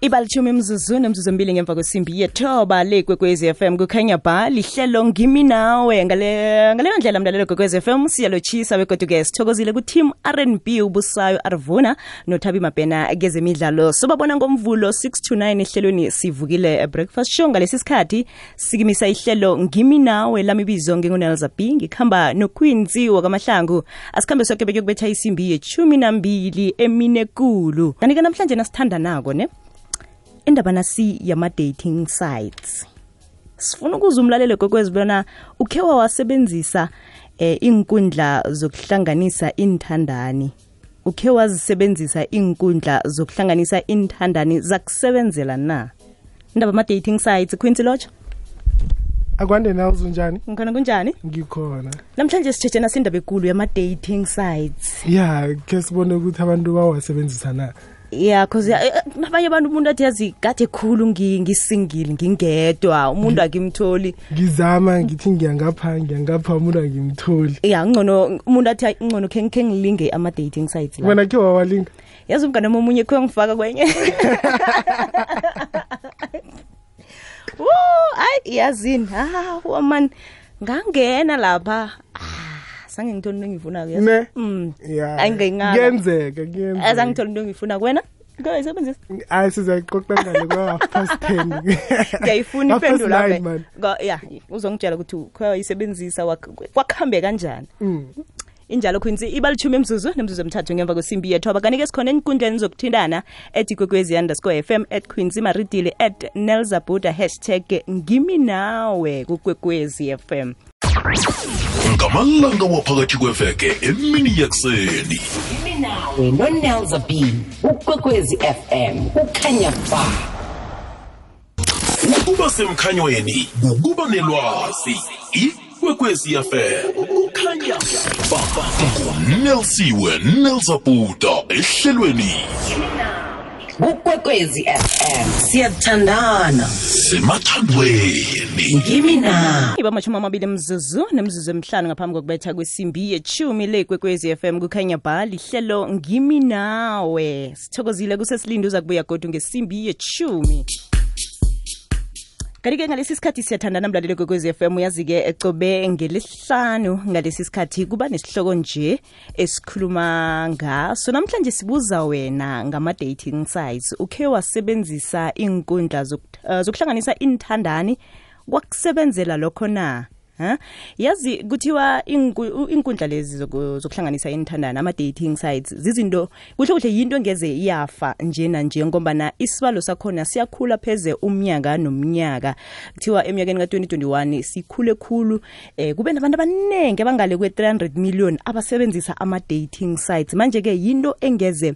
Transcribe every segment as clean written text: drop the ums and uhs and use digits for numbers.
Ibalithumi imzuzu nemzuzu ngemva kwesimbi yethoba le Kwekwezi FM kukhanya ba lihlelo ngimi nawe ngaleyo ndlela mlalelo Kwekwezi FM siyalochisa begoduke sithokozile ku team R&B ubusayo Arvuna noThabi Mabhena kezemidlalo sobabona ngomvulo 6 to 9 ehlelweni sivukile breakfast show ngalesi sikhathi sikimisa ihlelo ngimi nawe lamibizo ngingunelza B ngikhamba noQuincy wakamahlangu asikhambe sonke bekuyokubetha isimbi ye12 eminekulu kanike namhlanje nasithanda nako ne indaba nasi yama-dating sites sifuna ukuza umlalelo Kwekwezi bona ukhewa wasebenzisa inkundla zokuhlanganisa inthandani ukhewa zisebenzisa inkundla zokuhlanganisa inthandani zakusebenzela na indaba ama-dating sites Quincy Locho akwande nawo unjani ngikhona kunjani ngikhona namhlanje sithethe nasindaba ekulu yama-dating sites ke sibone ukuthi abantu bawasebenzisa na cause nabanye abantu umuntu athi yazi kade khulu ngisingile ngingedwa umuntu akimtholi ngizama ngithi ngiyangapha umuntu akimtholi ngcono umuntu athi ngcono khe ngilinge ama-dating sites la wena ke wawalinga yazi umngane omunye kho ngifaka kwenye yazini woman ngangena lapha sange ngithole into ngifuna ke ne ayingengaka kuyenzeka azangithole into ngifuna kwena ngoyisebenzisa sizayiqoqa ngale kwa 10 ngiyayifuna iphendula uzongitshela ukuthi uyisebenzisa wakhambe kanjani injalo Quincy ibalithumi imzuzu nemzuzu emithathu ngemva kwesimbi yethoba kanike sikhona enkundleni zokuthindana @kwekwezi_fm @Quincy Maridile @nelzabuda #ngimi nawe kuKwekwezi FM ngamalanga waphakathi kweveke emini yekuseni ngimi nawe noNelza B uKwekwezi FM ukhanya ba ukuba semkhanyweni ukuba nelwazi iKwekwezi FM ukhanya ba Nelsiwe Nelzabuda ehlelweni uKwekwezi FM siyathandana semathandweni ngimi nawe ibamashumi amabili mzuzu nemzuzu emihlanu ngaphambi kokubetha kwesimbi ye10 le Kwekwezi FM kukhanya ba lihlelo ngimi nawe sithokozile kusesilindo uza kubuya godu ngesimbi ye10 kanike ngalesi sikhathi siyathandana mlalelo Kwekwezi FM yazike ecobe ngelesihlanu ngalesi sikhathi kuba nesihloko nje esikhuluma ngaso namhlanje sibuza wena ngama-dating sites ukhe wasebenzisa inkundla zokuhlanganisa inthandani kwakusebenzela lokho na yazi kuthiwa inkundla lezi zokuhlanganisa inthandani ama-dating sites zizinto kuhle yinto engeze iyafa njena nje ngoba isibalo sakhona siyakhula pheze umnyaka nomnyaka kuthiwa eminyakeni ka-2021 sikhule khulu kube nabantu abaningi abangale kwe-300 million abasebenzisa ama-dating sites manje-ke yinto engeze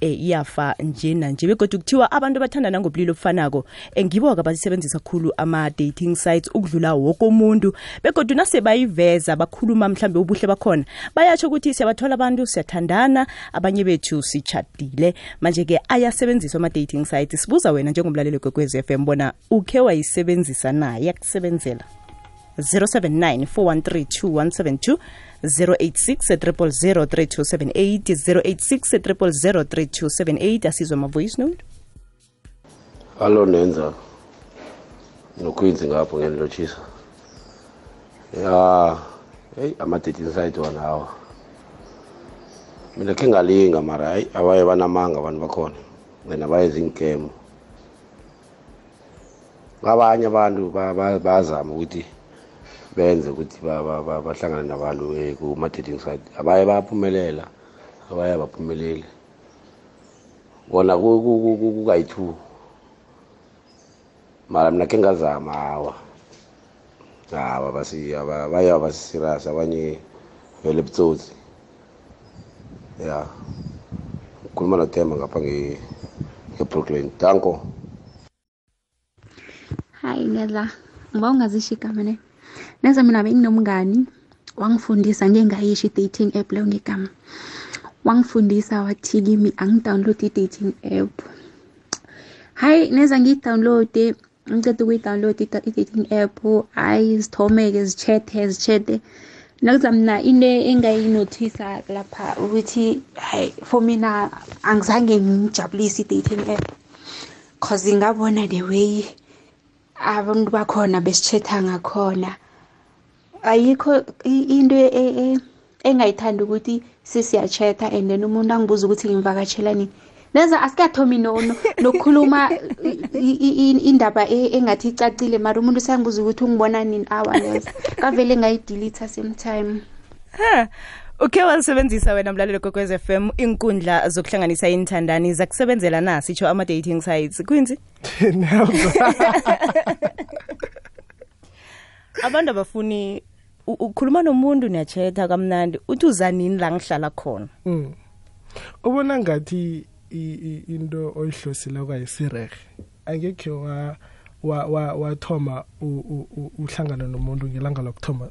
iyafa njena nje begodwa kuthiwa abantu bathandana ngobulili obufanako ngibo-ke abasebenzisa khulu ama-dating sites ukudlula woke umuntu begodwa nase bayiveza bakhuluma mhlambe ubuhle bakhona bayatsho ukuthi siyabathola abantu siyathandana abanye bethu sichadile manje-ke ayasebenziswa ama-dating sites sibuza wena njengomlaleli Kwekwezi FM bona ukhe wayisebenzisa na yakusebenzela 079 413 2172086 086 asizwe ma-voice note Hello Nenza noQuincy ngapho ngenilochisa ama-dating site wona hawa mina khe ngalinga mara abaye banamanga abantu bakhona wena bayenza inkemo abanye abantu bazama ukuthi benze ukuthi bahlangane nabantu kuma-dating site abaye baphumelela abaye baphumeleli bona kukayi-2 mara mina khe ngazama hawa baye basisirious abanye vele butsotsi khuluma noThemba ngapha nge-Brooklyn danko Hi Nela ngiba ungazisho igama ne Neza mina benginomngani wangifundisa ngengayishi dating app leyo ngegama wangifundisa wathi kimi angidownload i-dating app hayi neza ngiyi-download ngicede ukuyi-download i-dating app ayizithomeke zichathe nakuzamna into engayinothisa lapha ukuthi hayi for mina angizange ngijabulise i-dating app cause ngabona the way abantu bakhona besichetha ngakhona ayikho into engayithanda ukuthi sisiyachetha and then umuntu angibuza ukuthi ngimvakatshelani neza asikathomi nokukhuluma indaba engathi icacile mara umuntu usangibuza ukuthi ungibona nini neza kavele ngayidelete same time. Uke walisebenzisa wena mlalelo Kwekwezi FM inkundla zokuhlanganisa inthandani zakusebenzela na sitsho ama dating sites Quincy? Abantu abafuni ukhuluma nomuntu niyachetha kamnandi uthi uzanini la ngihlala khona. Ubona ngathi into oyihlosila kwayisirehe angekhe wathoma uhlangana nomuntu ngelanga lokuthoma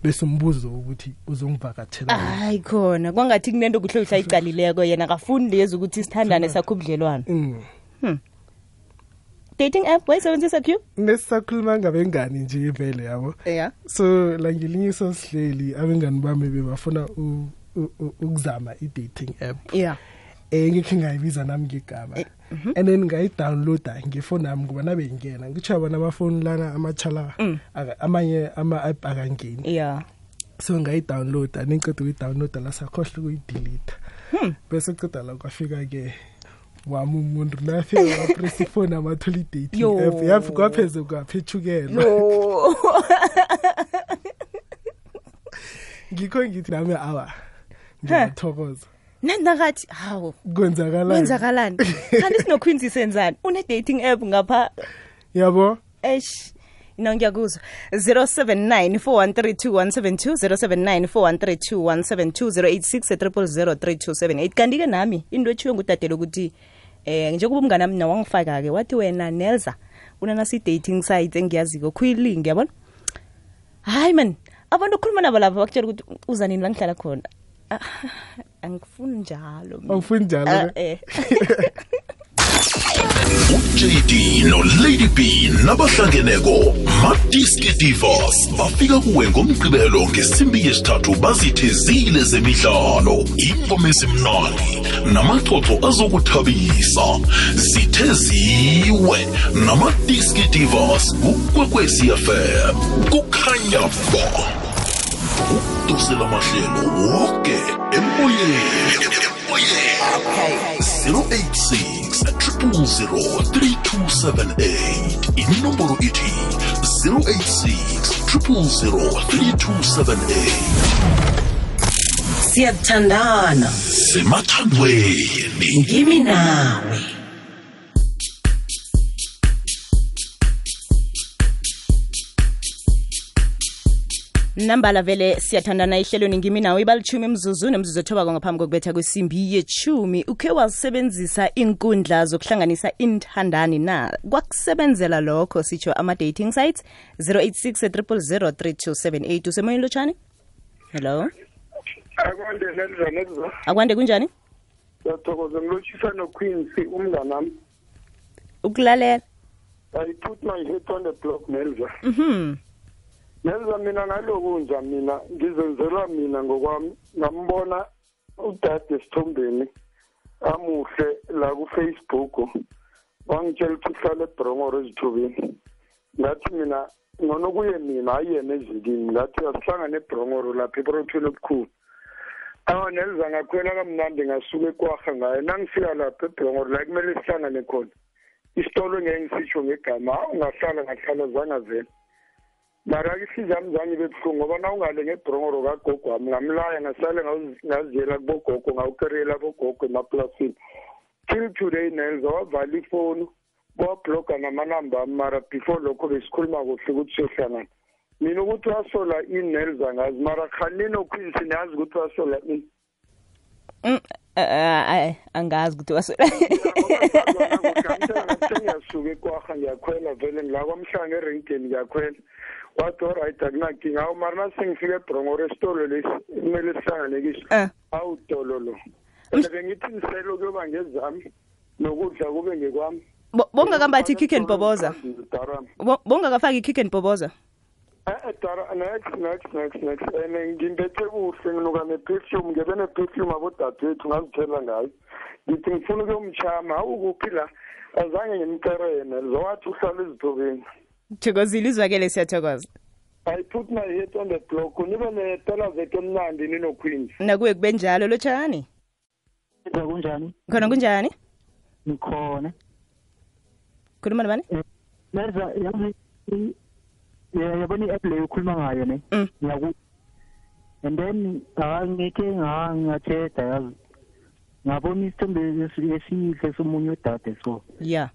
bese umbuzo ukuthi uzongivakathela. Hayi khona kwangathi kunento kuhlohla icalileko yena akafuni lezi ukuthi sithandane sakho ubudlelwane. Dating app wayisebenzisa Q? Nesisakhuluma ngabengani nje vele yabo. Yeah. So la ngelinye sosihleli abengani bami bebafuna ukuzama i-dating app. Yeah. Ngikhe ngayibiza nami ngegama. And then ngayi-downloada ngefoni yami ngoba nabe ngena ngitsho bona amafoni lana amachala amanye ama-app akangeni. Yeah. So ngayi-downloada nengiqeda ukuyi-downloada la sakhohle ukuyi-delete. Bese qeda la kwafika ke wami umuntu nafika wapress ifoni amathola i-dating app yafi kwapheze kwaphethukela. Ngikho ngithi nami awa ngiyathokoza. Nandakathi hawo kwenzakalani kanti sinoQuincy senzani une dating app ngapha yabo ngiyakuzwa 0794132172 0794132172 kanti ke nami into ethiwe ngudadelo ukuthi njengoba umngane nami nawangifaka ke wathi wena Nelza unana si dating site engiyaziko khuyilink yabona hayi man abantu ukukhuluma nabo lapha bakutshela ukuthi uzanini la ngihlala khona angifuni njalo uJD no Lady B nabahlangeneko Madiski Divas bafika kuwe ngomgqibelo ngesimbi yesithathu bazithezile zemidlalo ingoma esimnandi namaxoxo azokuthabisa zitheziwe naMadiski Divas kuKwekwezi FM kukhanya ba dosela mahlelo wonke emoyeni 086-000-3278 inombolo ithi 086-000-3278 siyathandana semathandweni ngimi nawe. Nambala vele siyathandana ihlelweni ngimi nawe ibalichumi imzuzu nemzuzu ethoba ngaphambi kokubetha kwesimbi yechumi uke wasebenzisa inkundla zokuhlanganisa inthandani na kwakusebenzela lokho sitsho ama dating sites 086-000-3278 usemoyeni lotshani. Hello akwande kunjani Ngiyathokoza ngilotshisa noQuincy umngane nami ukulalela. I put my head on the block Nelza. Nelza mina ngalokunja mina ngizenzela mina ngokwami ngambona udade Sithombeni amuhle la ku Facebook wangitshela ukuthi uhlala eBrongoro ezithubeni ngathi mina ngona kuye mina ayena ezikini ngathi asihlangane eBrongoro lapha eProthweni obukhulu Nelza ngakhwela kamnandi ngasuka eKwaga ngaye nangifika lapha eBrongoro la kumele sihlangane khona isitolo ngeke ngisitsho ngegama ngahlala zanga vele mara isizami zami bebuhlungu ngoba na ungale ngeBrongoro kagogo wami ngamlaya ngasale ngaziyela kubogogo ngawukerela bogogo emaplasini till today Nelza wavala ifoni wabloga namanamba mara before lokho besikhuluma kuhle ukuthi siyohlangana mina ukuthi wasola iNelza ngazi mara khanini oQuincy niyazi ukuthi wasola ini angazi ukuthi wasola ngiyasuka eKwaga ngiyakhwela vele ngila kwamhlanga erenkeni ngiyakhwela wathi alright akunankinga awu mara nasengifika eBrongoro esitolo lesi kumele sihlangane kiso awutololo bengithi niselo kuyoba ngezami nokudla kube ngekwami bonga kambathi kick and boboza bonga kafaki kick and boboza Dara next and ngimbethe kuhle nginuka ne-perfume ngebe ne-perfume abodadewethu ngazithela ngayo ngithi ngifuna ukuyomchama ukuphi la azange ngimkerene zowathi uhlala ezithobeni thokozile izwakele siyathokoza I put my head on the block nibe netela zethu emnandi ninoqueens nakuye kube njalo lotshani kunjani khona kunjani ngikhona khuluma nabani Merza yazi yabona i-app leyo ukhuluma ngayo ne ngiyaku and then ngeke ngathetha yazi ngabona isithombe esihle somunye udade so yeah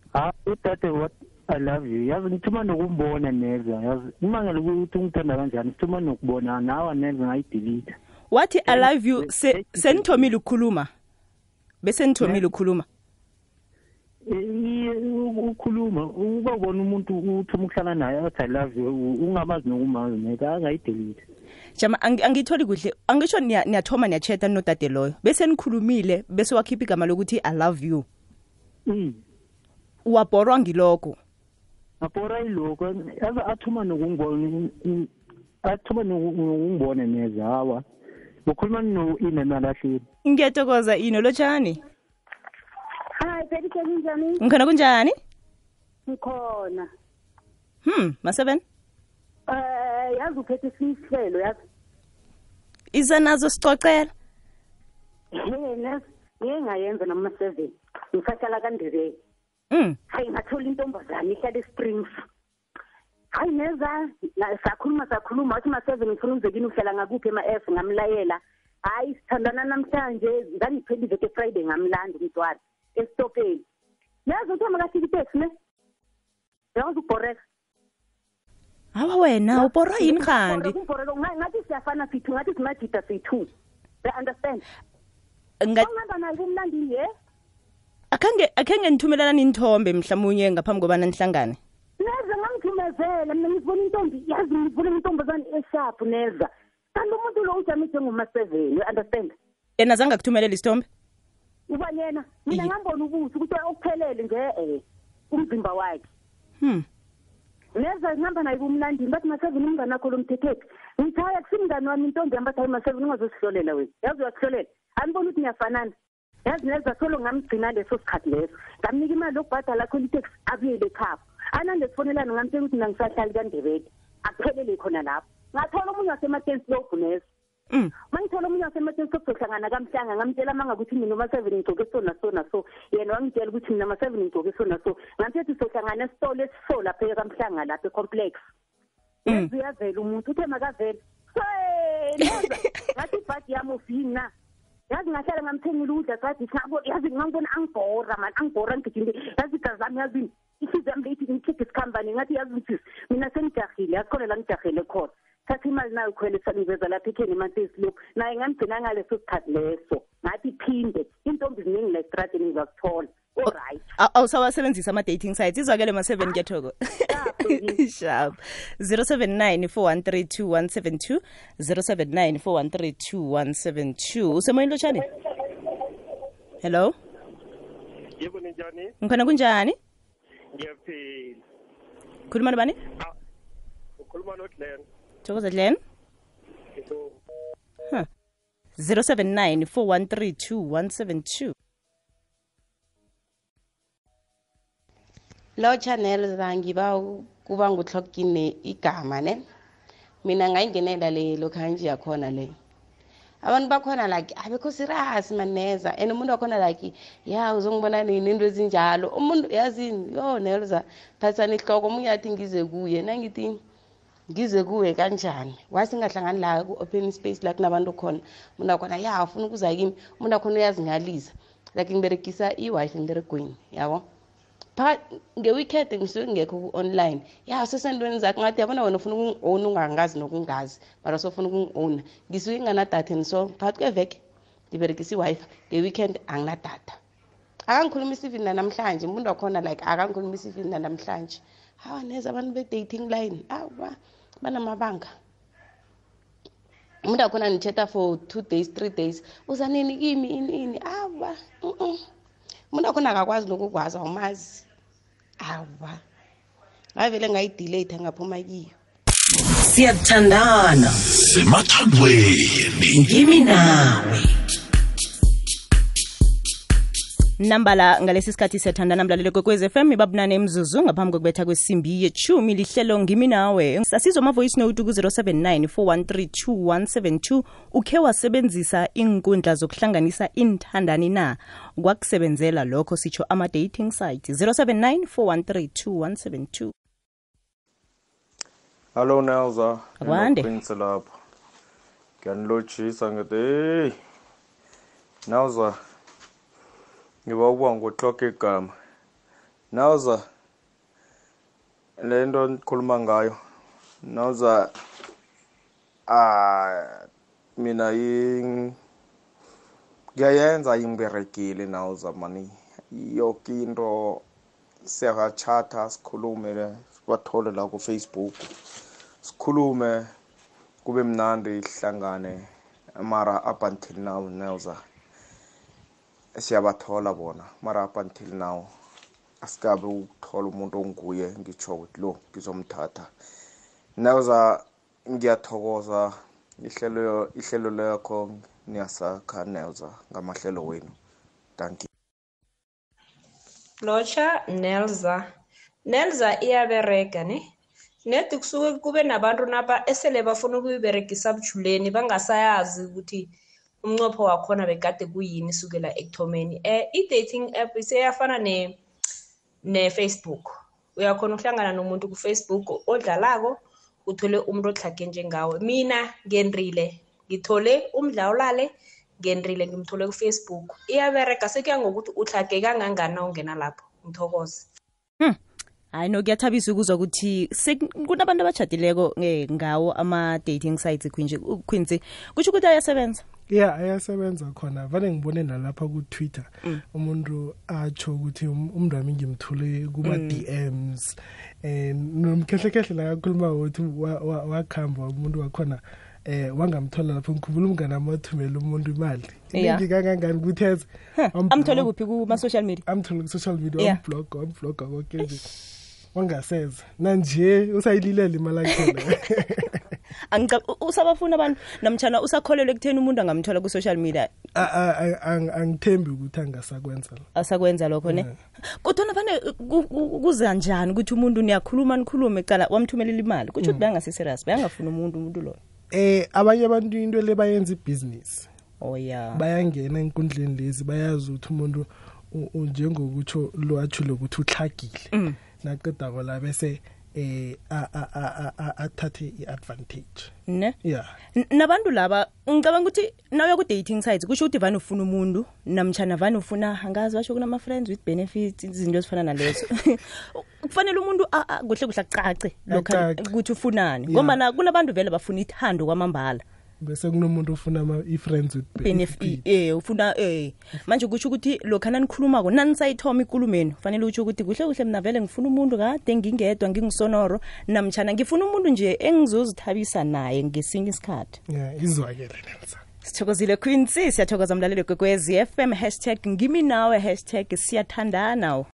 udade what I love you yazi ngithuma nokumbona neza yazi imangela ukuthi ungithanda kanjani ngithuma nokubona nawe neza ngayidelete wathi I love you senithomile ukukhuluma bese nithomile ukukhuluma ukhuluma ubabona umuntu uthuma ukuhlala naye athi I love you ungamazi nokumazi neka angayidelete jama angitholi kuhle angisho niyathoma niyachatha nodade loyo bese nikhulumile bese wakhipha igama lokuthi I love you wabhorwa ngiloko abhora iloko yaza athuma nokungibona neza hawa ukhuluma no-ina nalahleni ngiyathokoza ino lotshani Hi, baby, kunjani? Ngikhona kunjani? Ngikhona. Ma7? Yazi uphethe isihlelo yazi. Iza nazo sicocela. Yena, ngingayenza noma 7. Ngisahlala kaNdebele. Hayi ngathola intombazane ihlala eSprings. Hayi neza, sakhuluma wathi ma7 ngifuna umzekini uhlala ngakuphi ema-F ngamlayela. Hayi sithandana namhlanje, ngangiphela iveke Friday ngamlanda umntwana. Estopeni. Yazi uthoma kahliki taxi ne? Yazi ubhoreka. Hawa wena ubhorwa yini khandi? Ngathi siyafana sithu ngathi simajita sithu. I understand. Ngihamba naye kumlandini ye? Akhange nithumelana inthombe mhlawumnye ngaphambi kobana nihlangane. Neza ngangithumezela mina ngivula intombi yazi ngivula intombazane esharp neza. Kanti umuntu lo ujamise ngoma7 you understand? Yena zange akuthumelela isithombe? Ubanyena mina ngambona ubuthi ukuthi okuphelele nje umzimba wakhe neza ngihamba naye kumlandini bathi ma7 umngane wakho lomthethethi ngithaya kusimngane wami intombi yamba thayi ma7 ungazosihlolela wena yazi uyasihlolela anibona ukuthi niyafanana yazi neza solo ngamgcina leso sikhathi leso ngamnika imali yokubhadala khona itaxi abuyele ekhaya anande sifonelana ngamtshela ukuthi nangisahlali kaNdebele akuphelele khona lapho ngathola omunye wasematensi lobhunesa mangithola omunye wasematensi sokuhlangana kamhlanga ngamtshela manga ukuthi mina ma7 ngigcoke so yena wangitshela ukuthi mina ma7 ngigcoke so ngamthethe sohlangana esitolo esiso lapha kamhlanga lapha ecomplex uyavela umuntu uthe makavela ngathi ibhadi yami ufina yazi ngahlala ngamthengile udla sathi yazi ngangibona angibhora ngigijinde yazi igazami yazi ihliziyo yami leyithi ngikhiphe isikhambane ngathi yazi ukuthi mina sengijahile yakhona la ngijahele khona thatha imali nayo khwele saniveza lapha ekheni emantesi lokhu naye ngamgcina ngaleso sikhathi leso ngathi iphinde intombi ziningi la estradeni ngizakuthola alright awusawasebenzisa ama-dating sites izwakele ma7 ngiyathokoza sharp 079 4132172 079 4132172 usemoyeni lotshani hello yebo ninjani ngikhona kunjani ngiyaphila khuluma nobani ukhuluma noGlenn thokoza Glenn 079 4132172 Lo channel zangiba kuba nguhlokine igama ne mina ngayingenela le lokhanje yakhona le abantu bakhona like abekho serious maneza and umuntu wakhona like ya uzongibona nini into ezinjalo umuntu yazini yo Nelza thathani ihloko umunye athi ngize kuye nangithi ngize kuwe kanjani wasingahlangani la ku open space la kunabantu khona umuntu wakhona ya ufuna ukuza kimi umuntu wakhona uyazingalisa like ngiberegisa i-wifi ngiberegweni yabo nge-weekend ngisuke ngekho online ya sesentweni zakhe ngathi yabona wena ufuna ukungi-own ungangazi nokungazi mara sofuna ukungi-own ngisuke nginadatha and so phakathi kweveke ngiberegisa i-wifi nge-weekend anginadatha akangikhulumisa even nanamhlanje umuntu wakhona like akangikhulumisa even nanamhlanje hawa neza abantu be-dating line awa banamabanga umuntu wakhona nithetha for 2 days 3 days uza nini kimi ini awa umuntu wakhona akakwazi nokukwazi awumazi awa ngavele ngayidelete ngaphuma kiyo Siyathandana. Semathandweni. Ngimi nawe. Nambala ngalesi sikhathi siyathandana mlaleli kwekwezi FM ibabunane emzuzu ngaphambi kokubetha kwesimbi ye-10 lihlelo ngimi nawe sasizwa ama voice note ku 0794132172 ukhe wasebenzisa inkundla zokuhlanganisa inthandani na kwakusebenzela lokho sitsho ama dating site 0794132172. Hello Nelza. Akwande. Prince lapha. Ngiyanilotshisa ngithi hey. Nelza. Ngiba ukuba ngoclock igama. Nelza. Lento nikhuluma ngayo. Nelza mina ngiyayenza imberekile Nelza mani. Yonke into siyachata sikhulume sibathole la ku Facebook. Sikhulume kube mnandi ihlangane mara up until now Nelza siyabathola bona mara up until now asikabe ukuthola umuntu onguye ngitsho ukuthi lo ngizomthatha Nelza ngiyathokoza ihlelo lakho niyasakha Nelza ngamahlelo wenu thank you Locha Nelza iyabereka ne Nethi kusuke kube nabantu napa esele bafuna ukuyiberegisa bujuleni bangasayazi ukuthi umnqopho wakhona bekade kuyini sukela ekuthomeni. I-dating app iseyafana ne Facebook. Uyakhona ukuhlangana nomuntu ku Facebook odlalako uthole umuntu ohlake njengawe. Mina ngendrile ngithole umdlawulale ngendrile ngimthole ku Facebook. Iyabereka sekuya ngokuthi uhlake kangangana ungena lapho. Ngithokoze. Hayi no kuyathabisa ukuzwa ukuthi kunabantu abachadileko ngawo ama dating sites Quincy kusho ukuthi ayasebenza ayasebenza khona vale ngibone nalapha ku Twitter umuntu atsho ukuthi umntu wami ngimthule kuma DMs nomkhehle la kakhuluma ukuthi wakhamba umuntu wakhona wangamthola lapho ngikhumbula umngane amathumela umuntu imali ngikangangani ukuthi amthole kuphi kuma social media amthole ku social media unblog konke nje wangaseza nanje usayililele imali yakhe usabafuna abantu namtjana usakholelwe ekutheni umuntu angamthola ku social media angithembi ukuthi asakwenza lokho ne kodwa vane kuza njani ukuthi umuntu nikhulume ecala wamthumelela imali kuthi bayangase serious bayangafuna umuntu lo abanye abantu into le bayenza ibusiness bayangena enkundleni lezi bayazi ukuthi umuntu njengokutsho lo athule ukuthi uhlagile naqeda ngola bese athathe iadvantage ne nabantu laba ngicabanga ukuthi nawe ku dating sites kusho ukuthi vana ufuna umuntu namtjana vana ufuna angazi basho kunama friends with benefits izinto ezifana nalezo kufanele umuntu kuhle acace lokho ukuthi ufunani ngoba kunabantu vele bafuna ithando kwamambala bese kunomuntu ufuna i-friends with benefit ufuna manje kusho ukuthi lokho nanikhulumako nanisayithoma ikulumeni fanele utsho ukuthi kuhle mina vele ngifuna umuntu kade ngingedwa ngingisonoro namtjana ngifuna umuntu nje engizozithabisa naye ngesinye isikhathi izwakele Nelsa sithokozile Quincy siyathokoza mlaleli kwekwezi FM #ngimi nawe #siyathandana